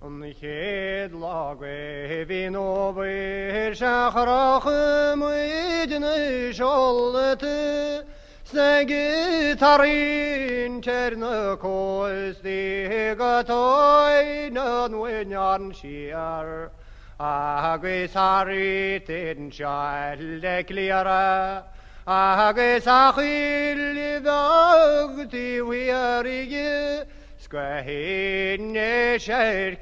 An chéad lá de mhí an Fhómhair sea chroch muid na seolta 's ag tarraingt ar na cóstaí go Toir an Bhuinneáin siar agus thart anseo le Cliara agus a choill bheag taobh thiar di 's go hInis Ceirr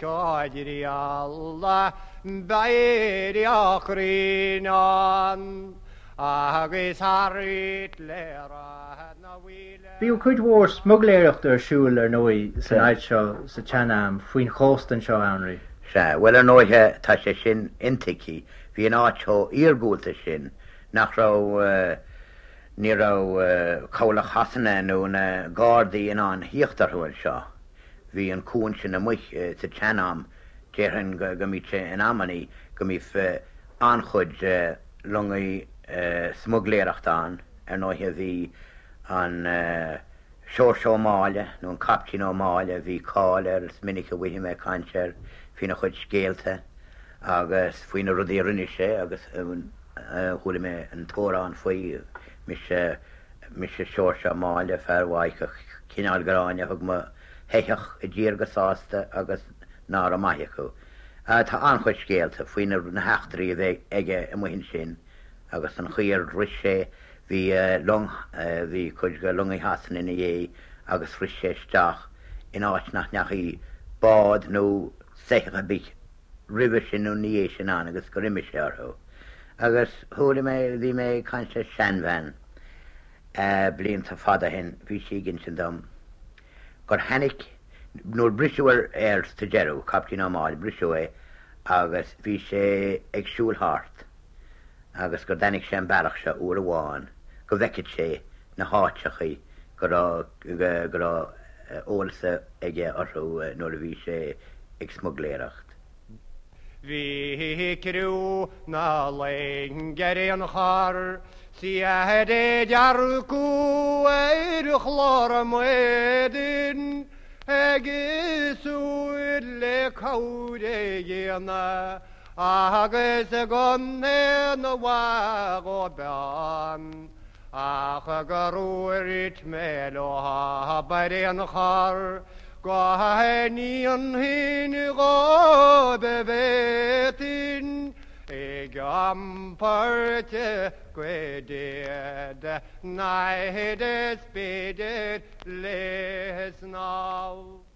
beidh a chruinneán agus thart le Ráth na bhFaoile. Bhíodh cuid mhór smugairléireachta ar siúl, ar ndóigh, san áit seo sa tsean-am, faoin chósta anseo, a Anraí. Sea, bhuel, ar ndóighe, tá sé sin intuigthe. Bhí an áit chomh iargúlta sin nach raibh, ní raibh cabhlach Shasana nó na Gardaí in ann thíocht orthu anseo. Bhí an cuan sin amuigh sa tsean-am, déarfainn go mbíodh sé in amannaí go mbíodh an-chuid longaí smuigléireachta ann. Ar ndóighe bhí an Seoirse Ó Máille, nó an Caiptín Ó Máille, bhí cáil air, is minic a bhfaighidh mé caint air faoina chuid scéalta agus faoi na rudaí a rinne sé agus chuala mé an t-amhrán faoi, Mise, mise Seoirse Ó Máille, fear Mhaigh Cineál Gráinne, thug mo shoitheach i dtír go sásta agus ná raibh maith acu. Tá an-chuid scéalta faoi na heachtraí a bhí aige amuigh ansin agus an chaoi ar shroich sé, bhí long, bhí cuid de longaí Shasana ina dhiaidh agus shroich sé isteach in áit nach ndeachaigh bád nó soitheach ar bith roimhe sin nó ina dhiaidh sin ann agus gur imigh sé orthu. Agus chuala mé, bhí mé ag caint le seanbhean blianta fada ó shin, bhí sí ag insint dom gur tháinig, nuair briseadh air sa deireadh, Caiptín Ó Máille, briseadh é agus bhí sé ag siúl thart agus gur dtáinig sé an bealach seo uair amháin go bhfeicfeadh sé na háiteachaí go raibh, go raibh eolas aige orthu nuair a bhí sé ag smugléireacht. Bhí criú na loinge ar aon chor 's iad ag dearcadh ar chlár a maidin ag súil le cabhair a dhéanamh agus gan aon mhaith dhóibh ann ach gur dhúirt mé leo ar aon chor go ndéanfainn dhóibh a bhféadfainn ag iompar cuid de naimhdeas b'fhéidir le snámh.